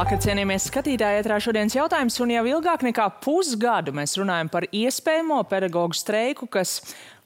Labvakar, cienījamies skatītāji, ētrā šodienas jautājums, un jau ilgāk nekā pusgadu mēs runājam par iespējamo pedagoģu streiku, kas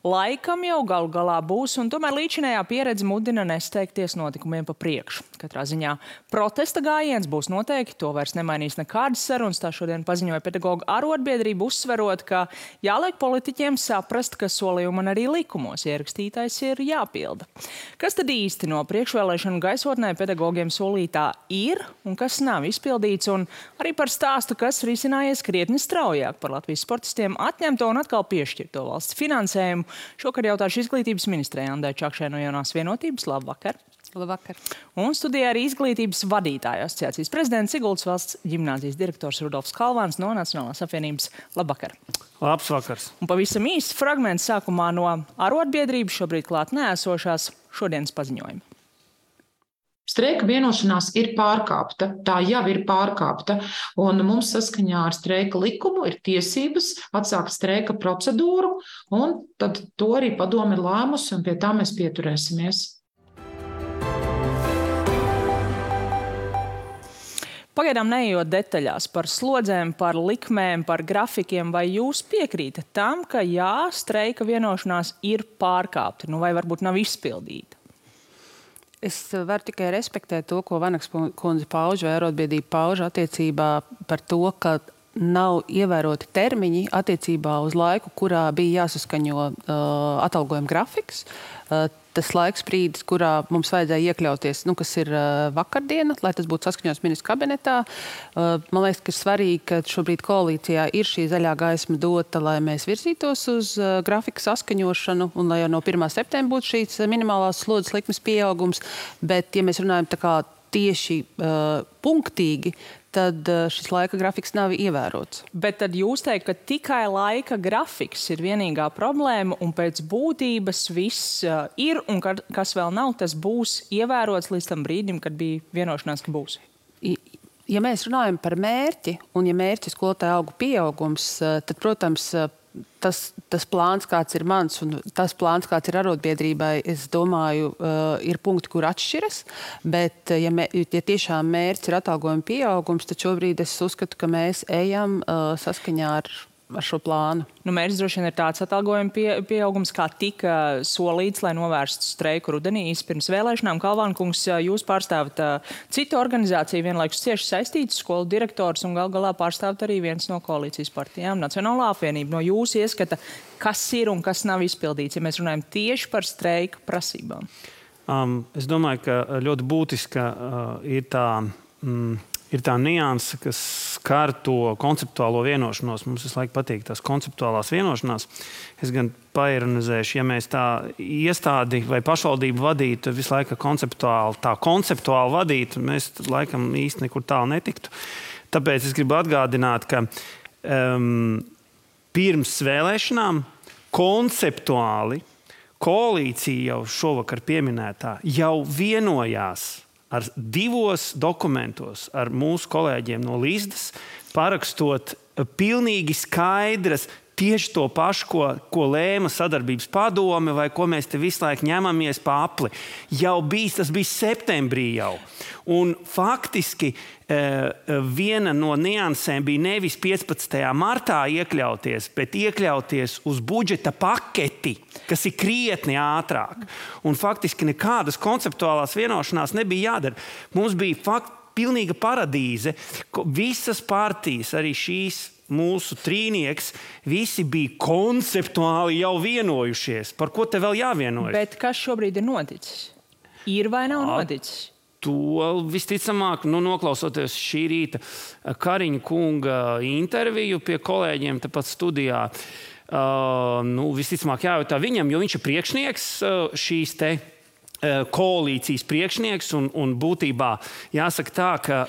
laikam jau galu galā būs, un tomēr līdzinējā pieredze mudina nesteigties notikumiem pa priekšu. Katrā ziņā protesta gājiens būs noteikti, to vairs nemainīs nekādas sarunas, tā šodien paziņoja pedagoģu arotbiedrība, uzsverot, ka jāliek politiķiem saprast, ka solījumi un arī likumos ierakstītais ir jāpilda. Kas tad īsti no priekšvēlēšanu gaisotnē pedagogiem solītā ir un kas nav izpildīts, un arī par stāstu, kas risinājies krietni straujāk par Latvijas sportistiem atņemto un atkal piešķirto valsts finansējumu. Šokar jautāšu izglītības ministrei Andai Čakšai no Jaunās vienotības. Labvakar! Labvakar! Un studijā arī izglītības vadītāju asociācijas prezidents Siguldas valsts ģimnāzijas direktors Rudolfs Kalvāns no Nacionālās apvienības. Labvakar! Labs vakars! Un pavisam īsts fragments sākumā no arotbiedrības šobrīd klāt neesošās šodienas paziņojuma. Streika vienošanās ir pārkāpta, tā jau ir pārkāpta, un mums saskaņā ar streika likumu ir tiesības atsākt streika procedūru, un tad to arī padome ir lēmusi, un pie tā mēs pieturēsimies. Pagaidām neejot detaļās par slodzēm, par likmēm, par grafikiem, vai jūs piekrītat tam, ka jā, streika vienošanās ir pārkāpta, vai varbūt nav izpildīta? Es varu tikai respektēt to, ko Vanaks kundze pauž vai arotbiedrība pauž attiecībā par to, ka nav ievēroti termiņi attiecībā uz laiku, kurā bija jāsaskaņo atalgojuma grafiks. Tas laiks brīdis, kurā mums vajadzēja iekļauties, kas ir vakardiena, lai tas būtu saskaņots ministru kabinetā. Man liekas, ka ir svarīgi, ka šobrīd koalīcijā ir šī zaļā gaisma dota, lai mēs virzītos uz grafika saskaņošanu un lai jau no 1. septembra būtu šīs minimālās slodzes likmes pieaugums. Bet, ja mēs runājam tā kā tieši punktīgi, tad šis laika grafiks nav ievērots. Bet tad jūs teikt, ka tikai laika grafiks ir vienīgā problēma un pēc būtības viss ir un kas vēl nav, tas būs ievērots līdz tam brīdim, kad bija vienošanās, ka būs? Ja mēs runājam par mērķi un ja mērķis skolotāju algu pieaugums, tad, protams, tas plāns, kāds ir mans, un tas plāns, kāds ir arotbiedrībai, es domāju, ir punkti, kur atšķiras. Bet, ja tiešām mērķis ir atalgojuma pieaugums, tad šobrīd es uzskatu, ka mēs ejam saskaņā ar šo plānu. Mērķis droši vien ir tāds atalgojuma pieaugums, kā tika solīts, lai novērstu streiku rudenī pirms vēlēšanām. Kalvānkungs, jūs pārstāvat citu organizāciju, vienlaikus cieši saistītas skolu direktors un gal galā pārstāvat arī viens no koalīcijas partijām, Nacionālā apvienība. No jūsu ieskata, kas ir un kas nav izpildīts, ja mēs runājam tieši par streika prasībām? Es domāju, ka ļoti būtiska ir tā nianse, kas skar to konceptuālo vienošanos. Mums visu laiku patīk tās konceptuālās vienošanās. Es gan paironizēšu, ja mēs tā iestādi vai pašvaldību vadītu visu laiku konceptuāli vadītu, mēs laikam īsti nekur tālu netiktu. Tāpēc es gribu atgādināt, ka pirms vēlēšanām konceptuāli koalīcija jau šovakar pieminētā jau vienojās ar 2 dokumentos ar mūsu kolēģiem no Līsdas, parakstot pilnīgi skaidras tieši to pašu, ko lēma sadarbības padome vai ko mēs te visu laiku ņemamies pa apli. Tas bija septembrī jau. Un faktiski viena no niansēm bija nevis 15. martā iekļauties, bet iekļauties uz budžeta paketi, kas ir krietni ātrāk. Un faktiski nekādas konceptuālās vienošanās nebija jādara. Mums bija pilnīga paradīze, visas partijas, arī šīs mūsu trīnieks, visi bija konceptuāli jau vienojušies. Par ko te vēl jāvienojas? Bet kas šobrīd ir noticis? Ir vai nav noticis? To visticamāk, noklausoties šī rīta Kariņa kunga interviju pie kolēģiem tepat studijā, visticamāk jājautā viņam, jo viņš ir priekšnieks šīs te koalīcijas priekšnieks un būtībā jāsaka tā, ka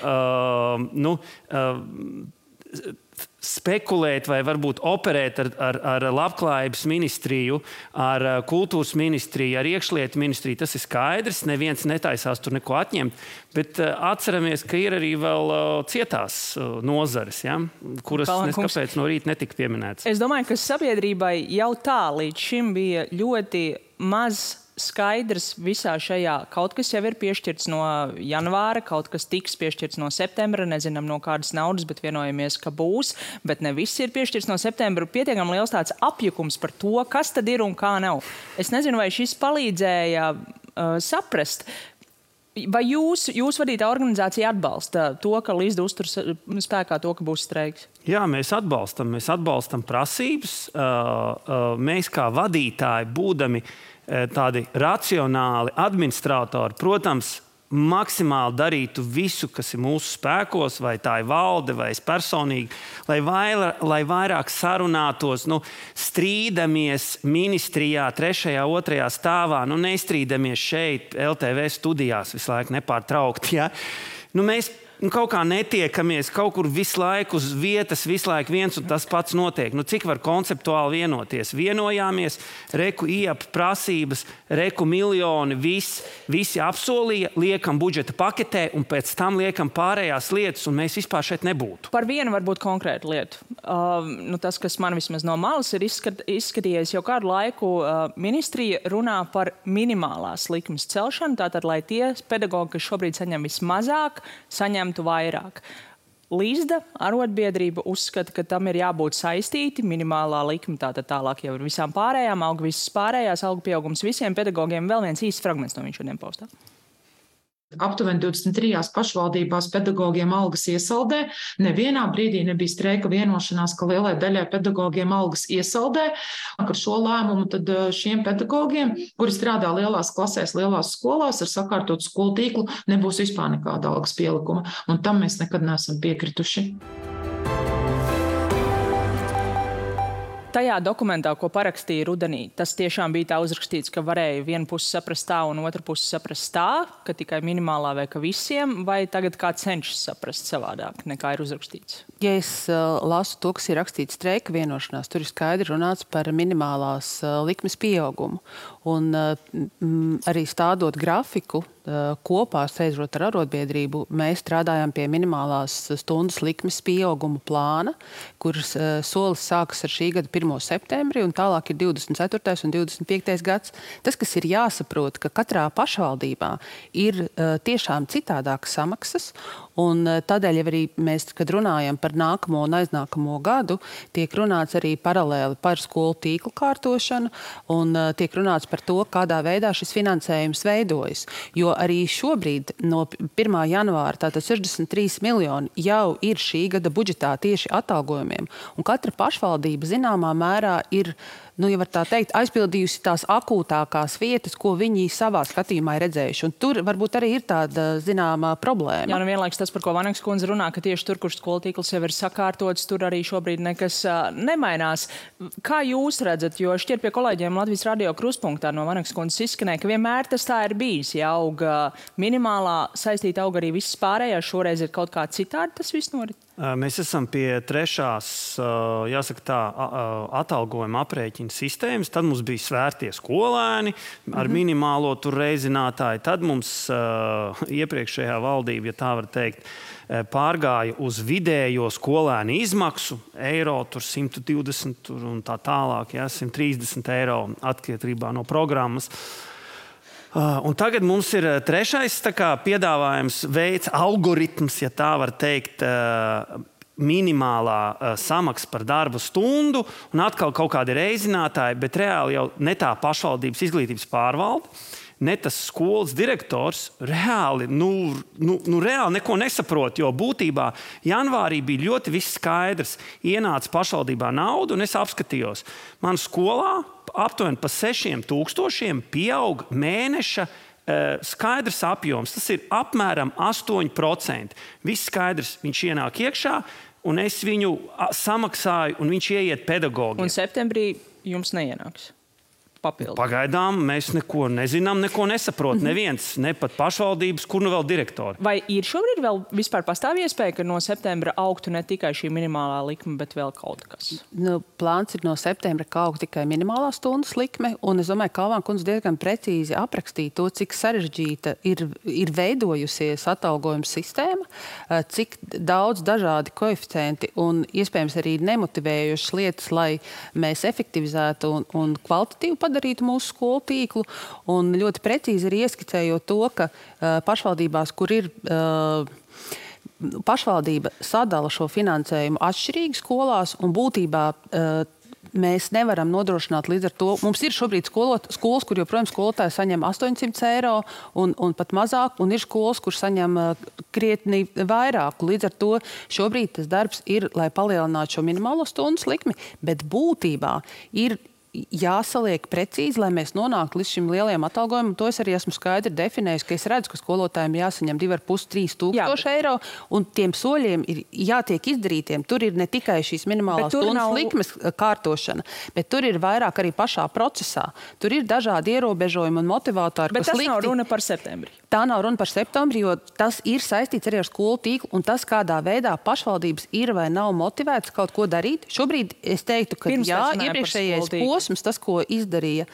spekulēt vai varbūt operēt ar labklājības ministriju, ar kultūras ministriju, ar iekšlietu ministriju, tas ir skaidrs, neviens netaisās tur neko atņemt, bet atceramies, ka ir arī vēl cietās nozares, ja, kuras neskapēc no rīta netika pieminētas. Es domāju, ka sabiedrībai jau tā līdz šim bija ļoti maz skaidrs visā šajā. Kaut kas jau ir piešķirts no janvāra, kaut kas tiks piešķirts no septembra, nezinām no kādas naudas, bet vienojamies, ka būs, bet ne viss ir piešķirts no septembra. Pietiekami liels tāds apjukums par to, kas tad ir un kā nav. Es nezinu, vai šis palīdzēja saprast. Vai jūs vadītā organizācija atbalsta to, ka Līsda uztur spēkā to, ka būs streiks? Jā, mēs atbalstam prasības. Mēs kā vadītāji, būdami tādi racionāli administratori, protams, maksimāli darītu visu, kas ir mūsu spēkos, vai tā ir valde, vai es personīgi, lai vairāk sarunātos, strīdamies ministrijā, 3., 2. stāvā, nestrīdamies šeit, LTV studijās visu laiku nepārtraukti. Ja? Mēs kaut kā netiekamies, kaut kur visu laiku uz vietas, visu laiku viens un tas pats notiek. Cik var konceptuāli vienoties? Vienojāmies, reku IAP prasības, reku miljoni, visi apsolīja, liekam budžeta paketē un pēc tam liekam pārējās lietas, un mēs vispār šeit nebūtu. Par vienu varbūt konkrētu lietu. Tas, kas man vismaz no malas ir izskatījies jau kādu laiku, ministrija runā par minimālās likmes celšanu, tātad, lai tie pedagogi, kas šobrīd saņem vismazāk, saņemtu vairāk. Līsda arotbiedrība uzskata, ka tam ir jābūt saistīti, minimālā likme, tātad tālāk jau ir visām pārējām, auga visas pārējās, auga pieaugums visiem pedagogiem. Vēl viens īsts fragments no viņš šodien paustā. Aptuveni 23 pašvaldībās pedagogiem algas iesaldē. Nevienā brīdī nebija streika vienošanās, ka lielai daļai pedagogiem algas iesaldē. Ar šo lēmumu tad šiem pedagogiem, kuri strādā lielās klasēs, lielās skolās ar sakārtotu skolu tīklu, nebūs vispār nekāda algas pielikuma. Un tam mēs nekad neesam piekrituši. Tajā dokumentā, ko parakstīja rudenī, tas tiešām bija tā uzrakstīts, ka varēja viena puse saprast tā un otra puse saprast tā, ka tikai minimālā vai ka visiem, vai tagad kā cenšas saprast savādāk, nekā ir uzrakstīts? Ja es lasu to, kas ir rakstīts streika vienošanās, tur ir skaidri runāts par minimālās likmes pieaugumu. Un arī stādot grafiku, kopā sēžot ar arotbiedrību, mēs strādājām pie minimālās stundas likmes pieauguma plāna, kuras solis sākas ar šī gada 1. septembri un tālāk ir 24. un 25. gads. Tas, kas ir jāsaprot, ka katrā pašvaldībā ir tiešām citādākas samaksas, un tādēļ arī mēs, kad runājam par nākamo un aiznākamo gadu, tiek runāts arī paralēli par skolu tīklu kārtošanu un tiek runāts par to, kādā veidā šis finansējums veidojas. Jo arī šobrīd no 1. janvāra tātad 63 miljoni jau ir šī gada budžetā tieši atalgojumiem. Un katra pašvaldība zināmā mērā ir, ja var tā teikt, aizpildījusi tās akūtākās vietas, ko viņi savā skatījumā ir redzējuši. Un tur varbūt arī ir tāda zināmā problēma. Jā, vienlaiks tas, par ko Vaneks kundze runā, ka tieši tur, kur skolu tīkls jau ir sakārtots, tur arī šobrīd nekas nemainās. Kā jūs redzat, jo šķiet pie kolēģiem Latvijas radio kruspunktā no Vaneks kundzes izskanēja, ka vienmēr tas tā ir bijis. Ja auga minimālā, saistīta auga arī visas pārējās, šoreiz ir kaut kā citādi tas viss norit? Mēs esam pie 3. jāsaka tā, atalgojuma aprēķina sistēmas. Tad mums bija svērtie skolēni ar minimālo tur reizinātāju. Tad mums iepriekšējā valdība, ja tā var teikt, pārgāja uz vidējo skolēnu izmaksu, eiro tur 120 tur un tā tālāk, 130 eiro atkarībā no programmas. Un tagad mums ir 3. piedāvājums veids, algoritms, ja tā var teikt, minimālā samaksa par darba stundu un atkal kaut kādi reizinātāji, bet reāli jau ne tā pašvaldības izglītības pārvalde, ne tas skolas direktors reāli neko nesaprot, jo būtībā janvārī bija ļoti viss skaidrs. Ienāca pašvaldībā nauda un es apskatījos. Man skolā aptuveni pa 6,000 pieaug mēneša skaidrs apjoms. Tas ir apmēram 8%. Viss skaidrs, viņš ienāk iekšā un es viņu samaksāju un viņš ieiet pedagogiem. Un septembrī jums neienāks? papildu? Pagaidām mēs neko nezinām, neko nesaprot. Neviens, ne pat pašvaldības, kur nu vēl direktori. Vai ir šobrīd vēl vispār pastāv iespēja, ka no septembra augtu ne tikai šī minimālā likme, bet vēl kaut kas? Plāns ir no septembra, ka aug tikai minimālā stundas likme, un es domāju, ka Kalvāna kundze diezgan precīzi aprakstīja to, cik sarežģīta ir veidojusies atalgojuma sistēma, cik daudz dažādi koeficienti un iespējams arī nemotivējušas lietas, lai mēs efektivizētu un kvalitatīvi padarītu mūsu skolu tīklu. Un ļoti precīzi ir ieskicējot to, ka pašvaldībās, kur ir pašvaldība sadala šo finansējumu atšķirīgi skolās un būtībā mēs nevaram nodrošināt līdz ar to. Mums ir šobrīd skolas, kur joprojām skolotāji saņem 800 eiro un pat mazāk, un ir skolas, kur saņem krietni vairāk. Līdz ar to šobrīd tas darbs ir, lai palielinātu šo minimālo stundas likmi, bet būtībā ir jāsaliek precīzi, lai mēs nonāktu līdz šim lielajam atalgojumam. To es arī esmu skaidri definējis, ka es redzu, ka skolotājiem jāsaņem 2,5–3 tūkstoši eiro, un tiem soļiem ir jātiek izdarītiem. Tur ir ne tikai šīs minimālās stundas likmes kārtošana, bet tur ir vairāk arī pašā procesā. Tur ir dažādi ierobežojumi un motivātori, bet tas nav runa par septembri. Tā nav runa par septembri, jo tas ir saistīts arī ar skolu tīklu, un tas, kādā veidā pašvaldības ir vai nav motivētas kaut ko darīt. Šobrīd es teiktu, ka iepriekšējais posms, tas, ko izdarīja,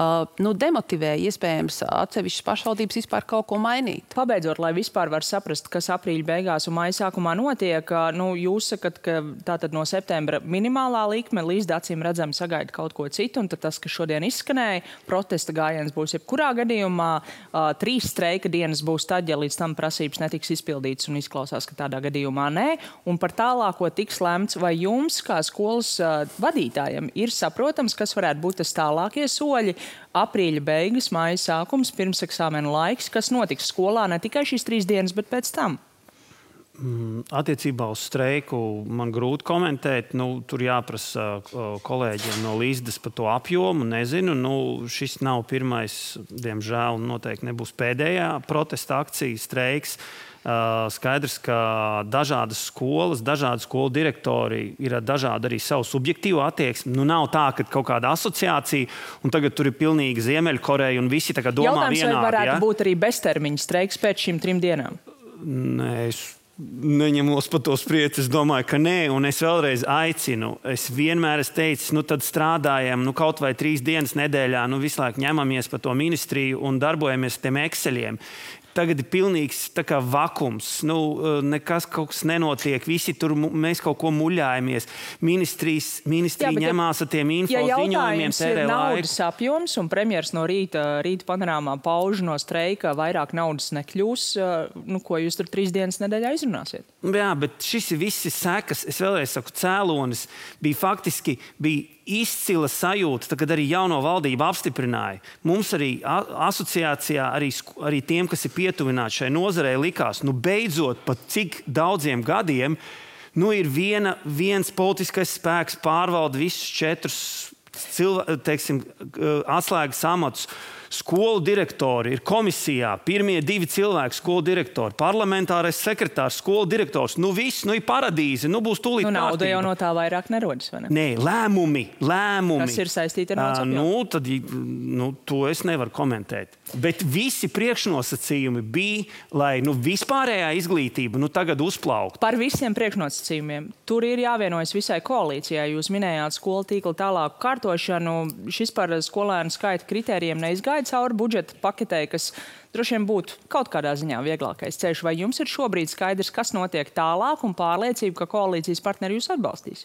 demotivēja iespējams atsevišķas pašvaldības vispār kaut ko mainīt. Pabeidzot, lai vispār var saprast, kas aprīļa beigās un maija sākumā notiek, jūs sakat, ka tātad no septembra minimālā likme līdz acīm redzam sagaida kaut ko citu, un tad tas, kas šodien izskanēja, protesta gājiens būs jebkurā gadījumā, 3 streika dienas būs tad, ja līdz tam prasības netiks izpildītas, un izklausās, ka tādā gadījumā nē, un par tālāko tiks lemts, vai jums, kā skolas vadītājiem, ir saprotams, kas varētu būt tas tālākie soļi, aprīļa beigas, maija sākums, pirmseksāmena laiks, kas notiks skolā ne tikai šīs 3 dienas, bet pēc tam? Attiecībā uz streiku man grūti komentēt. Tur jāprasa kolēģiem no Līsdas par to apjomu. Nezinu, šis nav pirmais, diemžēl, noteikti nebūs pēdējā protesta akcija, streiks. Skaidrs, ka dažādas skolas, dažādi skolu direktori ir dažādi arī savu subjektīvu attieksmi. Nav tā, ka kaut kāda asociācija, un tagad tur ir pilnīgi Ziemeļkoreja, un visi tā kā domā vienādi. Jautājums, vai varētu būt arī beztermiņa streiks pēc šīm 3 dienām? Nē, es neņemos par to spriest. Es domāju, ka nē, un es vēlreiz aicinu. Es vienmēr esmu teicis, tad strādājam, kaut vai 3 dienas nedēļā, visu laiku ņemamies par to ministriju un darbojamies tiem Exceliem. Tagad ir pilnīgs vakums. Nekas kaut kas nenotiek. Visi tur mēs kaut ko muļājamies. Ministrija ņemās ar tiem info ziņojumiem, tērē laiku. Ja naudas apjoms un premjers no rīta panorāmā pauž no streika, vairāk naudas nekļūs, ko jūs tur 3 dienas nedēļā izrunāsiet? Jā, bet šis ir visi sekas. Es vēlreiz saku, cēlonis bija izcila sajūta, kad arī jauno valdību apstiprināja. Mums arī asociācijā, arī tiem, kas ir pietuvināti šai nozarei, likās, beidzot pat cik daudziem gadiem, ir viens politiskais spēks pārvalda visus 4 atslēgas amatus. Skolu direktori ir komisijā, pirmie 2 cilvēki skolu direktori, parlamentārais sekretārs, skolu direktors. Viss, ir paradīze, būs tūlīt kārtība. Nauda jau no tā vairāk nerodas, vai ne? Nē, lēmumi. Kas ir saistīti ar naudas apjomu? To es nevaru komentēt. Bet visi priekšnosacījumi bija, lai vispārējā izglītība tagad uzplauktu. Par visiem priekšnosacījumiem. Tur ir jāvienojas visai koalīcijai. Jūs minējāt skolu tīkla tālāku kārtošanu. Šis par skolēnu skaita kritērijiem neizgāja cauri budžeta paketē, kas droši vien būtu kaut kādā ziņā vieglākais ceļš. Vai jums ir šobrīd skaidrs, kas notiek tālāk un pārliecība, ka koalīcijas partneri jūs atbalstīs?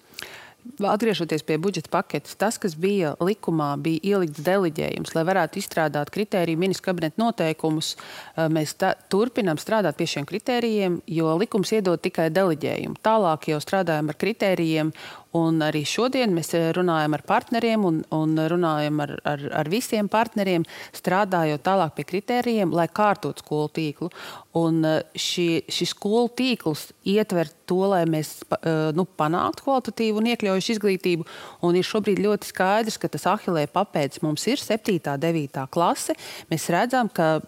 Atgriežoties pie budžeta paketes, tas, kas bija likumā, bija ielikts deleģējums, lai varētu izstrādāt kritēriju ministru kabineta noteikumus. Mēs turpinām strādāt pie šiem kritērijiem, jo likums iedod tikai deleģējumu. Tālāk jau strādājam ar kritērijiem, un arī šodien mēs runājam ar partneriem un runājam ar visiem partneriem, strādājot tālāk pie kritērijiem, lai kārtot skolu tīklu. Un šis skolu tīkls ietver to, lai mēs panāktu kvalitatīvu un iekļaujušu izglītību. Un ir šobrīd ļoti skaidrs, ka tas Ahilē papēdis mums ir 7. 9. klase. Mēs redzam, ka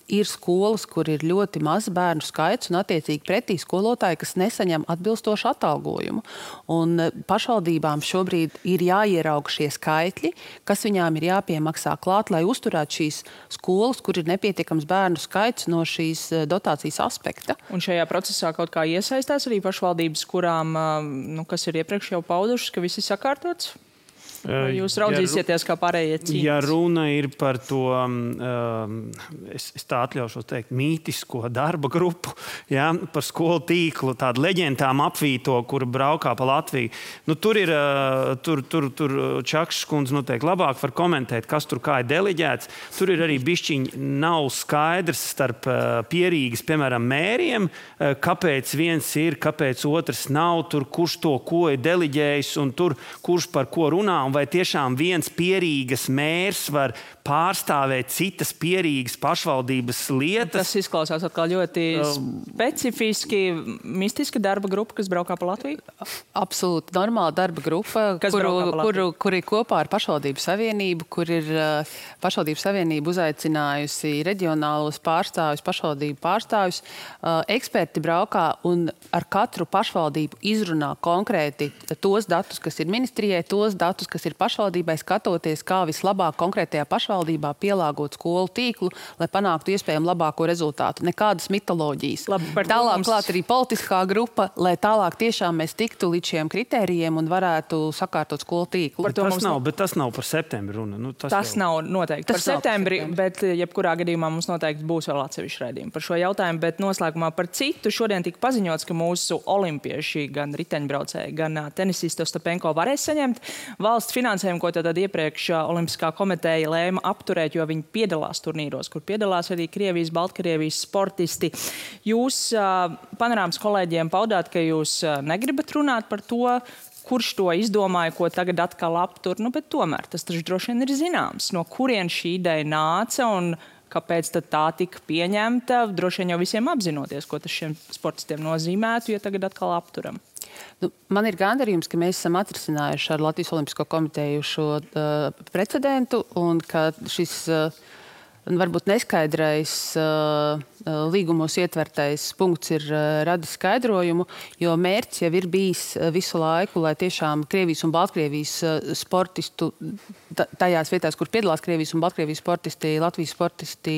ir skolas, kur ir ļoti maz bērnu skaits un attiecīgi pretī skolotāji, kas nesaņem atbilstošu atalgojumu. Un pašvaldībām šobrīd ir jāierauga šie skaitļi, kas viņām ir jāpiemaksā klāt, lai uzturētu šīs skolas, kur ir nepietiekams bērnu skaits no šīs dotācijas aspekta. Un šajā procesā kaut kā iesaistās arī pašvaldības, kurām, kas ir iepriekš jau paudušas, ka viss ir sakārtots? Vai jūs raudzīsieties, kā pārējie cīnās? Ja runa ir par to, es tā atļaušos teikt, mītisko darba grupu, ja, par skolu tīklu, tādu leģendām apvīto, kura braukā pa Latviju. Tur ir, tur Čakšs kundze noteikti labāk var komentēt, kas tur kā ir deleģēts. Tur ir arī bišķiņi nav skaidrs starp pierīgas, piemēram, mēriem, kāpēc viens ir, kāpēc otrs nav, tur kurš to ko ir deleģējis un tur kurš par ko runā. Vai tiešām viens pierīgas mērs var pārstāvēt citas pierīgas pašvaldības lietas? Tas izklausās atkal ļoti specifiski, mistiska darba grupa, kas braukā pa Latviju? Absolūti normāla darba grupa, kur ir kopā ar Pašvaldību savienību, kur ir Pašvaldību savienība uzaicinājusi reģionālos pārstāvjus, pašvaldību pārstāvjus. Eksperti braukā un ar katru pašvaldību izrunā konkrēti tos datus, kas ir ministrijai, tos datus, kas ir pašvaldībai, skatoties, kā vislabāk konkrētajā pašvaldībā pielāgot skolu tīklu, lai panāktu iespējami labāko rezultātu. Nekādas mitoloģijas. Tālāk klāt arī politiskā grupa, lai tālāk tiešām mēs tiktu līdz šiem kritērijiem un varētu sakārtot skolu tīklu. Bet tas nav par septembri runa. Tas nav noteikti par septembri, bet jebkurā gadījumā mums noteikti būs vēl atsevišķi raidījumi par šo jautājumu, bet noslēgumā par citu. Šodien tika paziņots, ka mūsu olimpieši, gan riteņbraucēji, gan tenisisti Ostapenko varēs saņemt valsts finansējumu, ko tad iepriekš Olimpiskā komiteja lēma apturēt, jo viņi piedalās turnīros, kur piedalās arī Krievijas, Baltkrievijas sportisti. Jūs panorāmas kolēģiem paudāt, ka jūs negribat runāt par to, kurš to izdomāja, ko tagad atkal aptur, bet tomēr tas taču droši vien ir zināms, no kurien šī ideja nāca un kāpēc tad tā tika pieņemta, droši vien jau visiem apzinoties, ko tas šiem sportistiem nozīmētu, ja tagad atkal apturam. Man ir gandarījums, ka mēs esam atrisinājuši ar Latvijas Olimpisko komiteju šo precedentu un ka šis varbūt neskaidrais līgumos ietvertais punkts ir radis skaidrojumu, jo mērķis jau ir bijis visu laiku, lai tiešām Krievijas un Baltkrievijas sportistu, tajās vietās, kur piedalās Krievijas un Baltkrievijas sportisti, Latvijas sportisti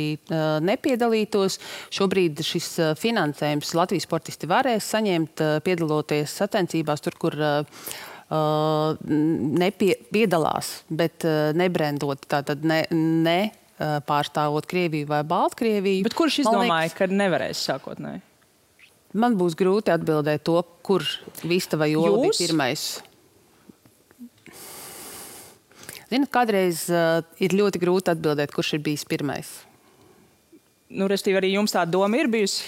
nepiedalītos. Šobrīd šis finansējums Latvijas sportisti varēs saņemt, piedaloties sacensībās tur, kur piedalās, bet nebrendot, tātad ne pārstāvot Krieviju vai Baltkrieviju. Bet kurš izdomāja, ka nevarēs sākotnēji? Man būs grūti atbildēt to, kur Vista vai Jola bija pirmais. Ziniet, kādreiz ir ļoti grūti atbildēt, kurš ir bijis pirmais. Restīvi, arī jums tā doma ir bijusi?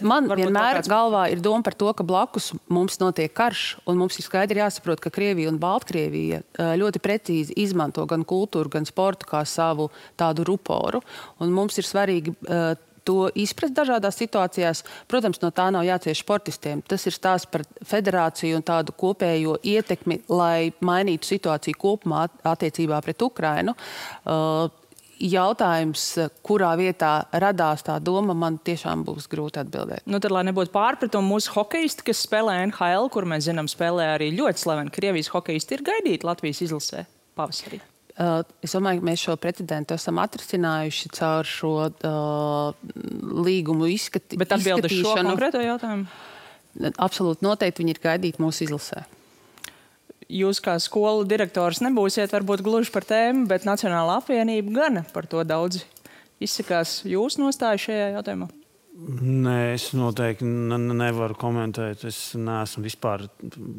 Man vienmēr galvā ir doma par to, ka blakus mums notiek karš, un mums ir skaidri jāsaprot, ka Krievija un Baltkrievija ļoti precīzi izmanto gan kultūru, gan sportu kā savu tādu ruporu. Un mums ir svarīgi to izprast dažādās situācijās. Protams, no tā nav jācieš sportistiem. Tas ir stāsts par federāciju un tādu kopējo ietekmi, lai mainītu situāciju kopumā attiecībā pret Ukrainu. Jautājums, kurā vietā radās tā doma, man tiešām būs grūti atbildēt. Tad, lai nebūtu pārpratumu, mūsu hokejisti, kas spēlē NHL, kur mēs zinām, spēlē arī ļoti slaveni Krievijas hokejisti, ir gaidīti Latvijas izlasē pavasarī. Es domāju, ka mēs šo precedentu esam atrisinājuši caur šo līgumu izskatīšanu. Bet atbildi šo konkrēto jautājumu? Absolūti noteikti viņi ir gaidīti mūsu izlasē. Jūs kā skolu direktors nebūsiet varbūt gluži par tēmu, bet Nacionālā apvienība gan par to daudz izsakās. Jūs nostāju šajā jautājumā? Nē, es noteikti nevaru komentēt. Es neesmu vispār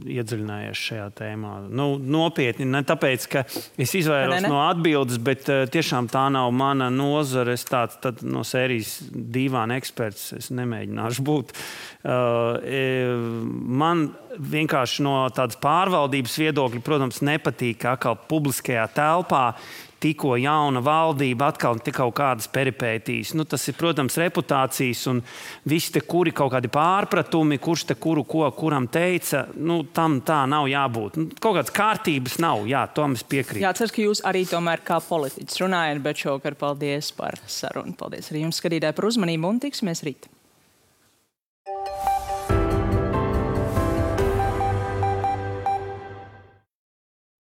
iedziļinājies šajā tēmā. Nopietni, ne tāpēc, ka es izvairos no atbildes, bet tiešām tā nav mana nozare. Es tāds no sērijas dīvāna eksperts. Es nemēģināšu būt. Man vienkārši no tādas pārvaldības viedokļa, protams, nepatīk, ka atkal publiskajā telpā tikko jauna valdība, atkal kaut kādas peripētīs. Nu, tas ir, protams, reputācijas un visi te kuri kaut kādi pārpratumi, kurš te kuru ko kuram teica, nu, tam tā nav jābūt. Nu, kaut kādas kārtības nav, jā, tom es piekrītu. Jā, ceru, ka jūs arī tomēr kā politiķis runājat, bet šovakar paldies par sarunu. Paldies arī jums, skatītāji, par uzmanību un tiksimies rīt.